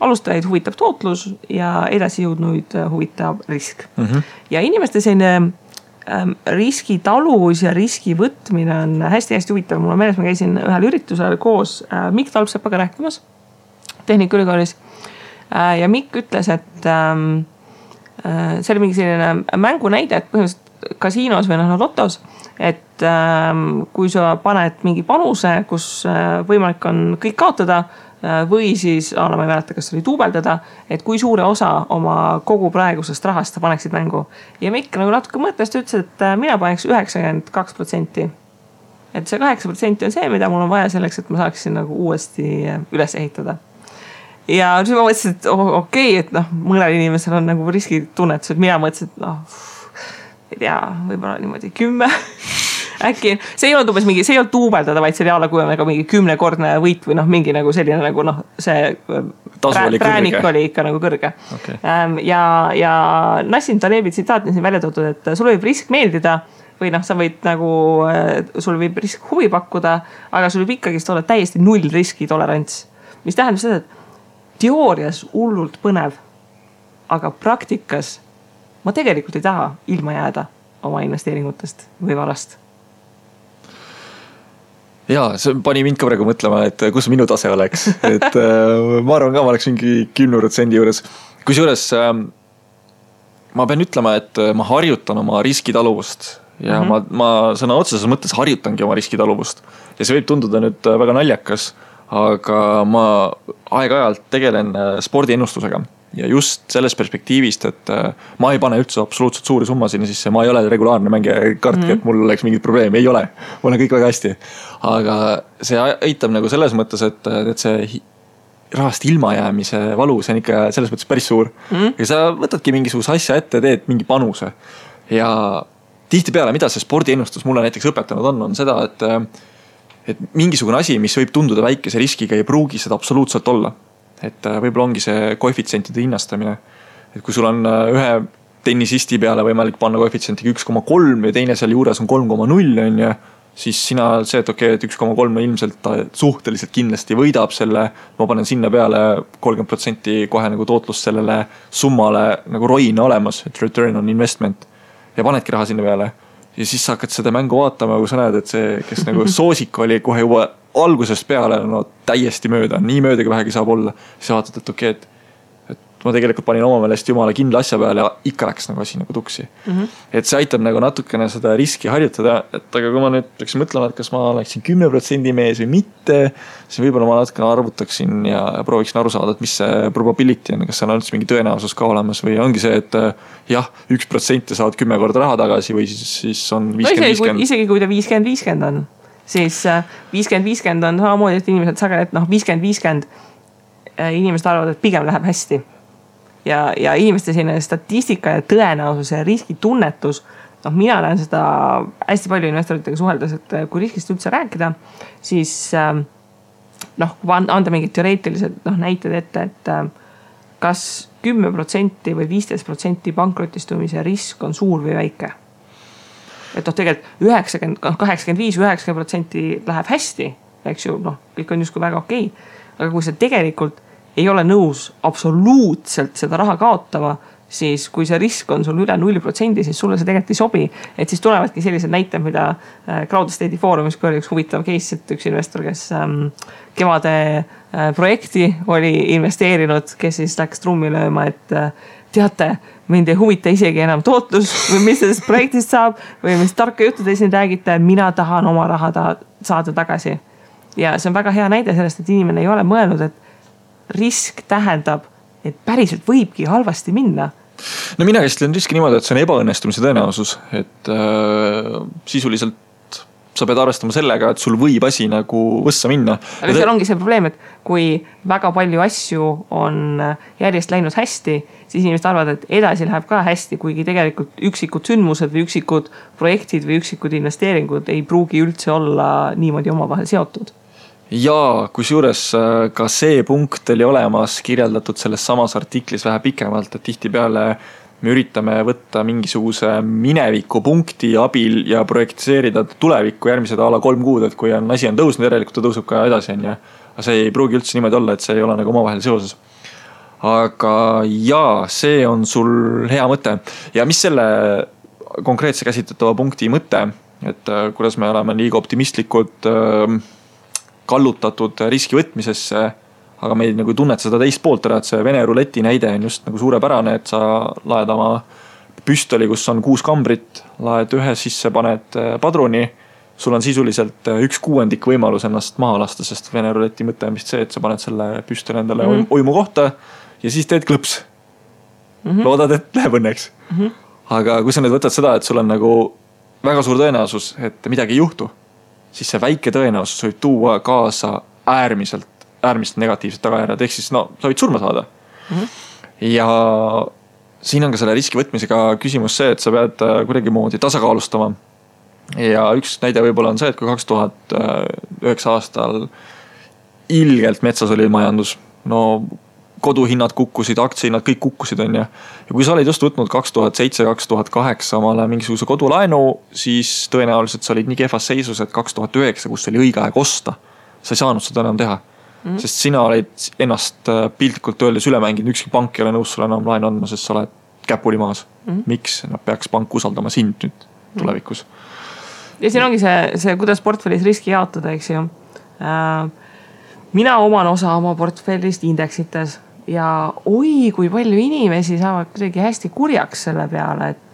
alustajaid huvitab tootlus ja edasi jõudnuid huvitab risk. Ja inimeste selline riskitaluvus ja riski võtmine on hästi-hästi huvitav. Mul on meeles, ma käisin ühel üritusel koos Mikk Talpsepaga rääkimas Tehnikaülikoolis ja Mikk ütles, et see oli mingi selline mängunäide, et põhimõtteliselt kasiinos või lotos, et kui sa paned mingi panuse, kus võimalik on kõik kaotada või siis, ma ei mäleta, kas oli duubeldada, et kui suure osa oma kogu praegusest rahast sa paneksid mängu. Ja Mikk nagu natuke mõttes ütles, et mina paneks 92%. et see 8% on see, mida mul on vaja selleks, et ma saaksin nagu uuesti üles ehitada. Ja siis ma mõtlesin, et okei, et noh, mõnel inimesel on nagu riskitunnetus, et mina mõtlesin, et ei tea, võib-olla niimoodi 10 äkki, see ei olnud umbes mingi, see ei olnud duubeldada, vaid see oli alla kui nagu mingi 10-kordne võit või noh, mingi nagu selline nagu noh, see präänik oli ikka nagu kõrge. Okay. Ja Nassim Talebi tsitaat on siin välja toodud, et sul võib risk meeldida või noh, sa võid nagu, sul võib risk huvi pakkuda, aga sul võib ikkagist olla täiesti null riski tolerants. Mis tähendab seda, et teoorias hullult põnev, aga praktikas ma tegelikult ei taha ilma jääda oma investeeringutest või varast. Jaa, see pani mind ka praegu mõtlema, et kus minu tase oleks. Et ma arvan ka, ma oleks mingi 10% juures. Kusjuures ma pean ütlema, et ma harjutan oma riskitaluvust ja ma sõna otseses mõttes harjutangi oma riskitaluvust. Ja see võib tunduda nüüd väga naljakas, aga ma aeg-ajalt tegelen spordiennustusega. Ja just selles perspektiivist, et ma ei pane üldse absoluutselt suuri summasid sisse, ma ei ole regulaarne mängija kartki, et mul oleks mingit probleemi, ei ole. Mul on kõik väga hästi. Aga see aitab nagu selles mõttes, et see rahast ilmajäämise valu, see on ikka selles mõttes päris suur. Ja sa võtadki mingisuguse asja ette, teed mingi panuse. Ja tihtipeale, mida see spordiennustus mulle näiteks õpetanud on seda, et mingisugune asi, mis võib tunduda väikese riskiga, ei pruugi seda absoluutselt olla. Et võib-olla ongi see koefitsientide hinnastamine. Et kui sul on ühe tennisisti peale võimalik panna koefitsientiga 1,3 ja teine seal juures on 3,0 on ja siis sina see, et okei, et 1,3 ilmselt suhteliselt kindlasti võidab selle, ma panen sinna peale 30% kohe nagu tootlust sellele summale nagu roina olemas, et return on investment ja panedki raha sinna peale. Ja siis sa hakkad seda mängu vaatama, kui sa näed, et see, kes nagu soosik oli kohe juba algusest peale no, täiesti mööda, nii mööda kui vähegi saab olla. Siis vaatad, et okei, et ma tegelikult panin oma meelest jumala kindla asja peale ja ikka läks nagu asi nagu tuksi. Et see aitab nagu natukene seda riski harjutada, et aga kui ma nüüd läksin mõtlema, et kas ma oleksin 10% mees või mitte, siis võib-olla ma natukene arvutaksin ja prooviksin aru saada, et mis see probability on, kas seal on üldse mingi tõenäosus ka olemas või ongi see, et jah, 1% saad 10 korda raha tagasi või siis on 50-50. Isegi kui ta 50-50 on, siis 50-50 on samamoodi, et inimesed sageli, et noh, 50-50 inimesed arvavad, et pigem läheb hästi. Ja inimeste selline statistika ja tõenäosus ja riskitunnetus, noh, mina näen seda hästi palju investoritega suheldes, et kui riskist üldse rääkida, siis noh, kui anda mingid teoreetilised näited ette, et kas 10% või 15% pankrotistumise risk on suur või väike. Et noh, tegelikult 85-90% läheb hästi, eks ju, noh, kõik on justkui väga okei, aga kui see tegelikult ei ole nõus absoluutselt seda raha kaotama, siis kui see risk on sul üle 0%, siis sulle see tegelikult ei sobi. Et siis tulevadki sellised näited, mida Crowd Estate'i foorumis, kui oli üks huvitav case, et üks investor, kes kevade projekti oli investeerinud, kes siis läks trummi lööma, et teate, mind ei huvita isegi enam tootlus või mis sellest projektist saab või mis tarka juttu te siin räägite, mina tahan oma raha saada tagasi. Ja see on väga hea näide sellest, et inimene ei ole mõelnud, et risk tähendab, et päriselt võibki halvasti minna. No mina käsitlen riski niimoodi, et see on ebaõnnestumise tõenäosus, et sisuliselt sa pead arvestama sellega, et sul võib asi nagu võssa minna. Aga seal ongi see probleem, et kui väga palju asju on järjest läinud hästi, siis inimesed arvavad, et edasi läheb ka hästi, kuigi tegelikult üksikud sündmused või üksikud projektid või üksikud investeeringud ei pruugi üldse olla niimoodi omavahel seotud. Ja kusjuures ka see punkt oli olemas kirjeldatud selles samas artiklis vähe pikemalt, et tihtipeale me üritame võtta mingisuguse mineviku punkti abil ja projektiseerida tulevikku järgmised ala 3 kuud, et kui asi on tõusnud, järelikult ta tõuseb ka edasi. Aga see ei pruugi üldse niimoodi olla, et see ei ole nagu omavahel seoses. Aga jaa, see on sul hea mõte. Ja mis selle konkreetse käsitletava punkti mõte, et kuidas me oleme liiga optimistlikud kallutatud riski võtmisesse, aga me ei nagu tunnet seda teist poolt ära, et see Vene ruleti näide on just nagu suurepärane, et sa laed oma püstoli, kus on 6 kambrit, laed ühe sisse, paned padruni, sul on sisuliselt 1/6 võimalus ennast maha lasta, sest Vene ruleti mõte on vist see, et sa paned selle püstoli endale oimu kohta ja siis teed klõps. Loodad, et läheb õnneks. Aga kui sa nüüd võtad seda, et sul on nagu väga suur tõenäosus, et midagi ei juhtu, siis see väike tõenäosus võib tuua kaasa äärmiselt negatiivsed tagajärjed, ehk siis sa võid surma saada. Ja siin on ka selle riski võtmisega küsimus see, et sa pead kuidagimoodi tasakaalustama. Ja üks näide võib-olla on see, et kui 2009 aastal ilgelt metsas oli majandus, koduhinnad kukkusid, aktsiahinnad, kõik kukkusid, on ja kui sa olid just võtnud 2007-2008 omale mingisuguse kodulaenu, siis tõenäoliselt sa olid nii kehvas seisus, et 2009, kus oli õige aeg osta, sa ei saanud seda enam teha. Sest sina olid ennast piltlikult öeldes üle mänginud, ükski pank ei ole nõus sulle enam laenu andma, sest sa oled käpuli maas. Miks? Nad peaks pank usaldama sind nüüd tulevikus. Ja siin ongi see kuidas portfellis riski jaotada, eks ju. Mina oman osa oma portfellist indeksites ja kui palju inimesi saavad kuidagi hästi kurjaks selle peale, et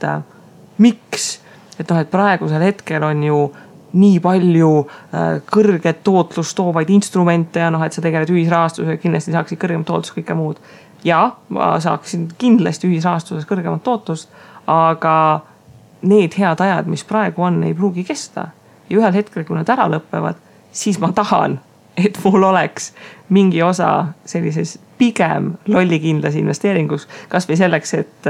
miks? Et praegusel hetkel on ju nii palju kõrget tootlust toovaid instrumente ja et sa tegeled ühisrahastusega, kindlasti saaksid kõrgemat tootlust kõike muud. Ja ma saaksin kindlasti ühisrahastuses kõrgemat tootlust, aga need head ajad, mis praegu on, ei pruugi kesta. Ja ühel hetkel, kui nad ära lõppevad, siis ma tahan, et mul oleks mingi osa sellises pigem lollikindlas investeeringus, kas või selleks, et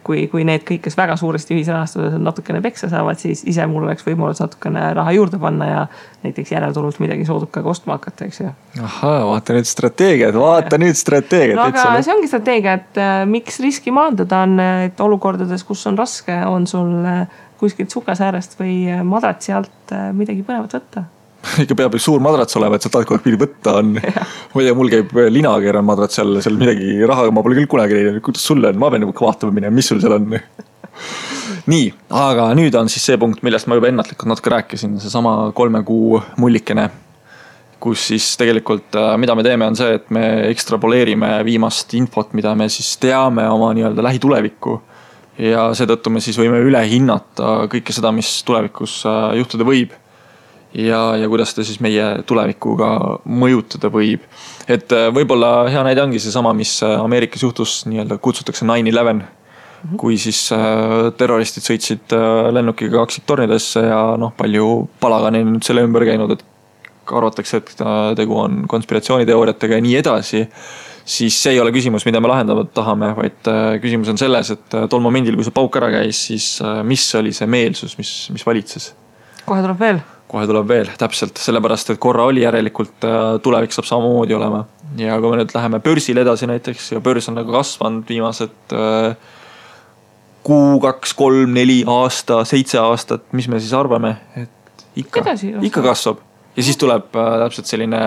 kui need kõik, kes väga suuresti ühisrahastuses natukene peksa saavad, siis ise mul oleks võimalus natukene raha juurde panna ja näiteks järeltulult midagi soodukaga ostma hakata, eks ju. Ahaa, vaata nüüd strateegiad. No aga see ongi strateegia, et miks riski maandada on, et olukordades, kus on raske, on sul kuskilt sukasäärest või madratsi alt midagi põnevat võtta. Ikka peab üks suur madrats olema, et sa tahad kogu aeg pidi võtta on. Ma ei tea, mul käib linakeeran madrats seal midagi raha, ma pole küll kunagi näinud, kuidas sul on, ma pean vaatama minema, mis sul seal on. Nii, aga nüüd on siis see punkt, millest ma juba ennatlikult natuke rääkisin, see sama 3 kuu mullikene, kus siis tegelikult, mida me teeme, on see, et me ekstrapoleerime viimast infot, mida me siis teame oma nii-öelda lähitulevikku. Ja seetõttu me siis võime üle hinnata kõike seda, mis tulevikus juhtuda võib. Ja kuidas ta siis meie tulevikuga mõjutada võib. Et võib-olla hea näide ongi see sama, mis Ameerikas juhtus, nii-öelda kutsutakse 9/11, kui siis terroristid sõitsid lennukiga kaksiktornidesse ja palju palagani nüüd selle ümber käinud, et arvatakse, et tegu on konspiratsiooniteooriatega ja nii edasi, siis see ei ole küsimus, mida me lahendama tahame, vaid küsimus on selles, et tol momendil, kui see pauk ära käis, siis mis oli see meelsus, mis valitses? Kohe tuleb veel, täpselt, sellepärast, et korra oli järelikult tulevik saab samamoodi olema. Ja kui me nüüd läheme börsil edasi näiteks ja börs on nagu kasvanud viimased kuu, 2, 3, 4 aasta, 7 aastat, mis me siis arvame, et ikka kasvab. Ja siis tuleb täpselt selline,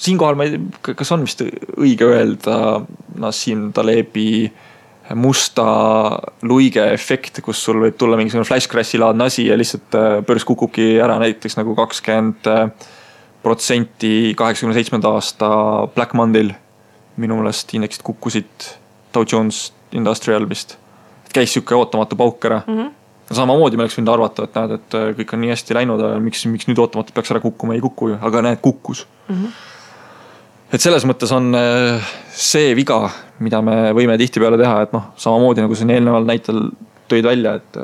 siinkohal ma ei tea, kas on vist õige öelda Nassim Talebi musta luige efekt, kus sul võib tulla mingisugune flash crashi laadne asi ja lihtsalt börs kukubki ära näiteks nagu 20% 87. aasta Black Monday'l. Minu meelest indeksid kukkusid Dow Jones Industrial vist. Et käis siuke ootamatu pauk ära. Samamoodi me oleks võinud arvata, et näed, et kõik on nii hästi läinud, miks nüüd ootamatu peaks ära kukkuma, ei kukku, aga näed, kukkus. Et selles mõttes on see viga, mida me võime tihti peale teha, et samamoodi nagu see eelneval näitel tõid välja, et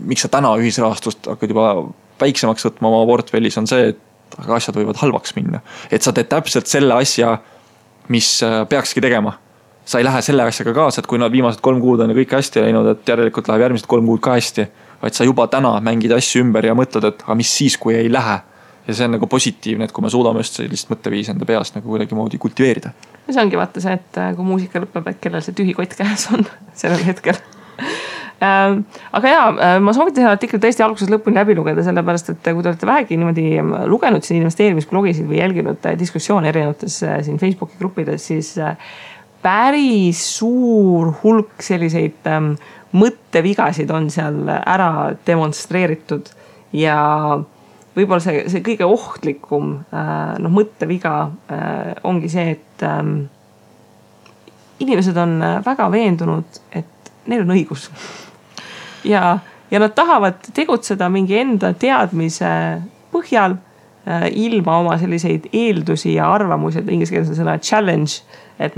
miks sa täna ühisrahastust hakkad juba väiksemaks võtma oma portfellis on see, et asjad võivad halvaks minna. Et sa teed täpselt selle asja, mis peakski tegema. Sa ei lähe selle asjaga kaasa, et kui nad viimased 3 kuud on ja kõik hästi läinud, et järelikult läheb järgmised 3 kuud ka hästi, vaid sa juba täna mängid asju ümber ja mõtled, et mis siis, kui ei lähe. Ja see on nagu positiivne, et kui me suudame just sellist mõtteviisi enda peast nagu kuidagi moodi kultiveerida. Ja see ongi vaata see, et kui muusika lõpeb, et kellel see tühi kott käes on sellel hetkel. Aga ma soovitan seda artiklit tõesti alguses lõpuni läbi lugeda, sellepärast, et kui te olete vähegi niimoodi lugenud siin investeerimisblogisid või jälginud diskussioone erinevates siin Facebooki gruppides, siis päris suur hulk selliseid mõttevigasid on seal ära demonstreeritud ja võib-olla see kõige ohtlikum mõtteviga ongi see, et inimesed on väga veendunud, et neil on õigus. Ja nad tahavad tegutseda mingi enda teadmise põhjal ilma oma selliseid eeldusi ja arvamusi, et inglise keeles on sõna challenge, et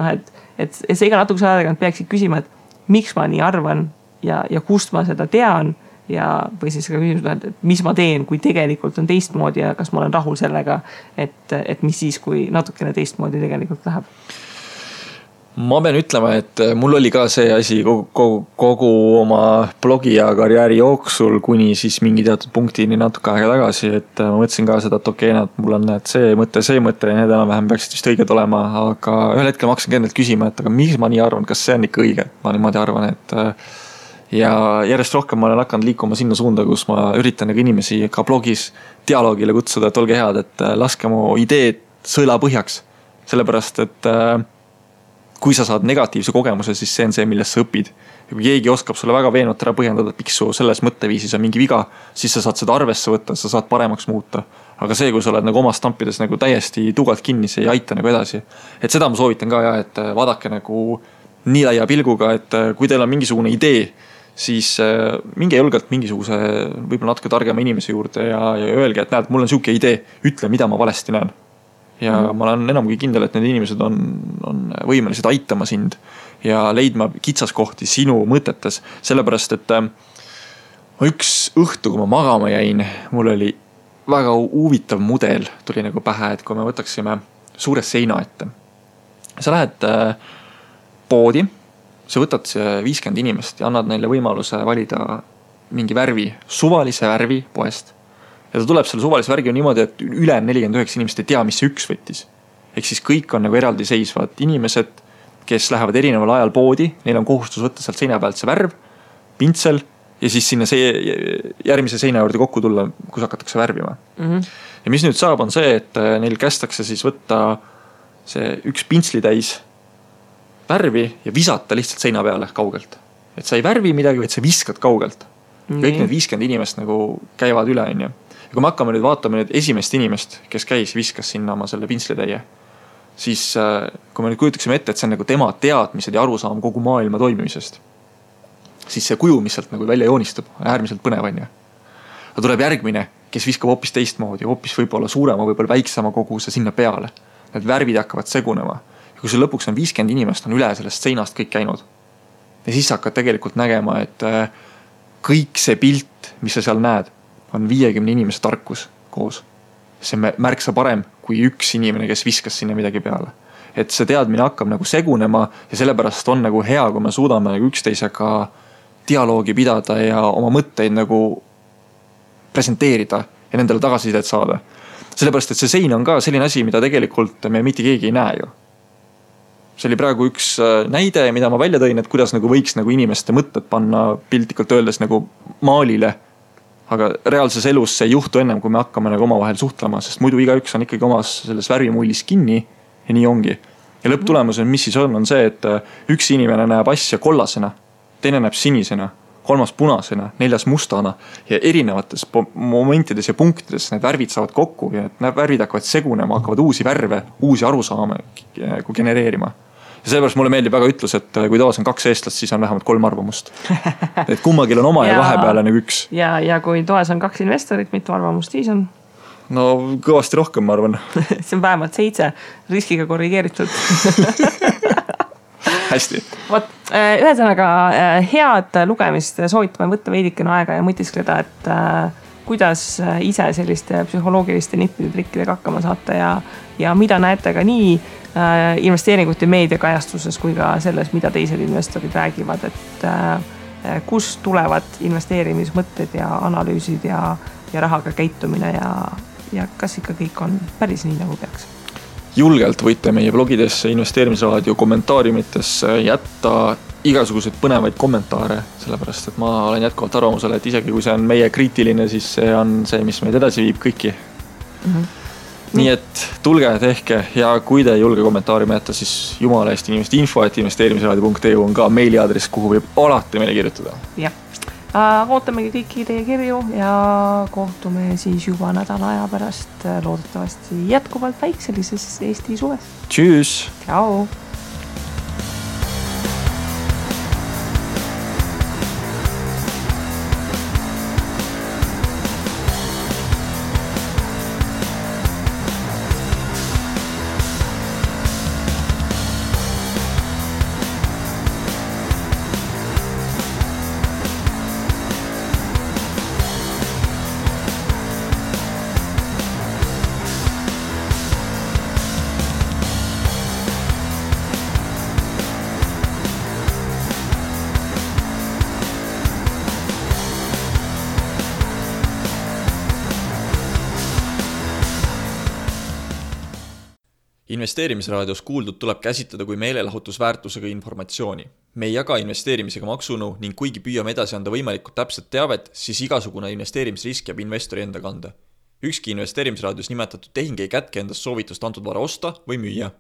sa iga natukese aega peaksid küsima, et miks ma nii arvan ja kust ma seda tean või siis ka küsimus, et mis ma teen, kui tegelikult on teistmoodi ja kas ma olen rahul sellega, et mis siis, kui natukene teistmoodi tegelikult läheb. Ma pean ütlema, et mul oli ka see asi kogu oma blogi ja karjääri jooksul kuni siis mingi teatud punktini natuke aega tagasi, et ma mõtlesin ka seda, et okei, mul on see mõte ja need enam-vähem peaksid vist õiged olema, aga ühel hetkel ma hakkasin endalt küsima, et aga miks ma nii arvan, kas see on ikka õige? Ma niimoodi arvan, et ja järjest rohkem ma olen hakanud liikuma sinna suunda, kus ma üritan inimesi ka blogis dialoogile kutsuda, et olge head, et laske mu ideed sõela põhjaks, sellepärast, et kui sa saad negatiivse kogemuse, siis see on see, millest sa õpid. Ja kui keegi oskab sulle väga veenvalt ära põhjendada, et miks su selles mõtteviisis on mingi viga, siis sa saad seda arvesse võtta, sa saad paremaks muuta. Aga see, kui sa oled oma stampides täiesti tugalt kinni, see ei aita edasi. Et seda ma soovitan ka, et vaadake nii laia pilguga, et kui teil on mingisugune idee, siis minge julgelt mingisuguse võib-olla natuke targema inimese juurde ja öelge, et näed, mul on siuke idee, ütle, mida ma valesti näen. Ja ma olen enam kui kindel, et need inimesed on võimelised aitama sind ja leidma kitsaskohti sinu mõtetes. Sellepärast, et üks õhtu, kui ma magama jäin, mul oli väga huvitav mudel tuli pähe, et kui me võtaksime suure seina ette. Sa lähed poodi, sa võtad 50 inimest ja annad neile võimaluse valida mingi värvi, suvalise värvi poest. Ja ta tuleb selle suvalise värgi niimoodi, et üle 49 inimest ei tea, mis see üks võttis. Ehk siis kõik on eraldi seisvad inimesed, kes lähevad erineval ajal poodi, neil on kohustus võtta sealt seina pealt see värv, pintsel ja siis sinna järgmise seina juurde kokku tulla, kus hakatakse värvima. Ja mis nüüd saab, on see, et neil kästakse siis võtta see üks pintsli täis värvi ja visata lihtsalt seina peale kaugelt. Et sa ei värvi midagi, vaid sa viskad kaugelt. Kõik need 50 inimest käivad üle, on ju. Ja kui me hakkame nüüd vaatama nüüd esimest inimest, kes käis, viskas sinna oma selle pintslitäie, siis kui me nüüd kujutaksime ette, et see on tema teadmised ja arusaam kogu maailma toimimisest, siis see kuju, mis sealt välja joonistub, on äärmiselt põnev, on ju. Aga tuleb järgmine, kes viskab hoopis teistmoodi, hoopis võib-olla suurema, võib-olla väiksema koguse sinna peale. Need värvid hakkavad segunema. Ja kui see lõpuks on 50 inimest, on üle sellest seinast kõik käinud. Ja siis hakkad tegelikult nägema, et kõik see pilt, mis sa seal näed, on 50 inimese tarkus koos. See on märksa parem kui üks inimene, kes viskas sinna midagi peale. Et see teadmine hakkab segunema ja sellepärast on hea, kui me suudame üksteisega dialoogi pidada ja oma mõtteid presenteerida ja nendele tagasisidet saada. Sellepärast, et see sein on ka selline asi, mida tegelikult me mitte keegi ei näe ju. See oli praegu üks näide, mida ma välja tõin, et kuidas võiks inimeste mõtted panna piltlikult öeldes maalile. Aga reaalses elus see ei juhtu ennem, kui me hakkame omavahel suhtlema, sest muidu igaüks on ikkagi omas selles värvimullis kinni ja nii ongi. Ja lõpptulemus on, mis siis on see, et üks inimene näeb asja kollasena, teine näeb sinisena, kolmas punasena, neljas mustana ja erinevates momentides ja punktides need värvid saavad kokku ja need värvid hakkavad segunema, hakkavad uusi värve, uusi arusaame genereerima. Ja sellepärast mulle meeldib väga ütlus, et kui toas on 2 eestlast, siis on vähemalt 3 arvamust. Et kummagil on oma ja vahepeale üks. Ja kui toas on 2 investorit, mitu arvamust siis on? No kõvasti rohkem, ma arvan. See on vähemalt 7 riskiga korrigeeritud. Hästi. Ühesõnaga head lugemist, soovitame võtta veidikene aega ja mõtiskleda, et kuidas ise selliste psühholoogiliste nippide trikkidega hakkama saata ja mida näete ka nii investeeringute meediakajastuses kui ka selles, mida teised investorid räägivad, et kust tulevad investeerimismõtted ja analüüsid ja rahaga käitumine ja kas ikka kõik on päris nii, nagu peaks. Julgelt võite meie blogidesse, investeerimisraadio kommentaariumitesse jätta igasuguseid põnevaid kommentaare, sellepärast, et ma olen jätkuvalt arvamusele, et isegi kui see on meie kriitiline, siis see on see, mis meid edasi viib kõiki. Nii et tulge, tehke ja kui te ei julge kommentaariumi jätta, siis jumala eest inimeste info@investeerimisraadio.eu on ka meiliaadress, kuhu võib alati meile kirjutada. Jah, ootamegi kõiki teie kirju ja kohtume siis juba nädala aja pärast loodetavasti jätkuvalt väikselises Eesti suves. Tšüss! Ciao! Investeerimisraadios kuuldud tuleb käsitleda kui meelelahutusväärtusega informatsiooni. Me ei jaga investeerimisega maksunõu ning kuigi püüame edasi anda võimalikult täpset teavet, siis igasugune investeerimisrisk jääb investori enda kanda. Ükski investeerimisraadios nimetatud tehing ei kätke endast soovitust antud vara osta või müüa.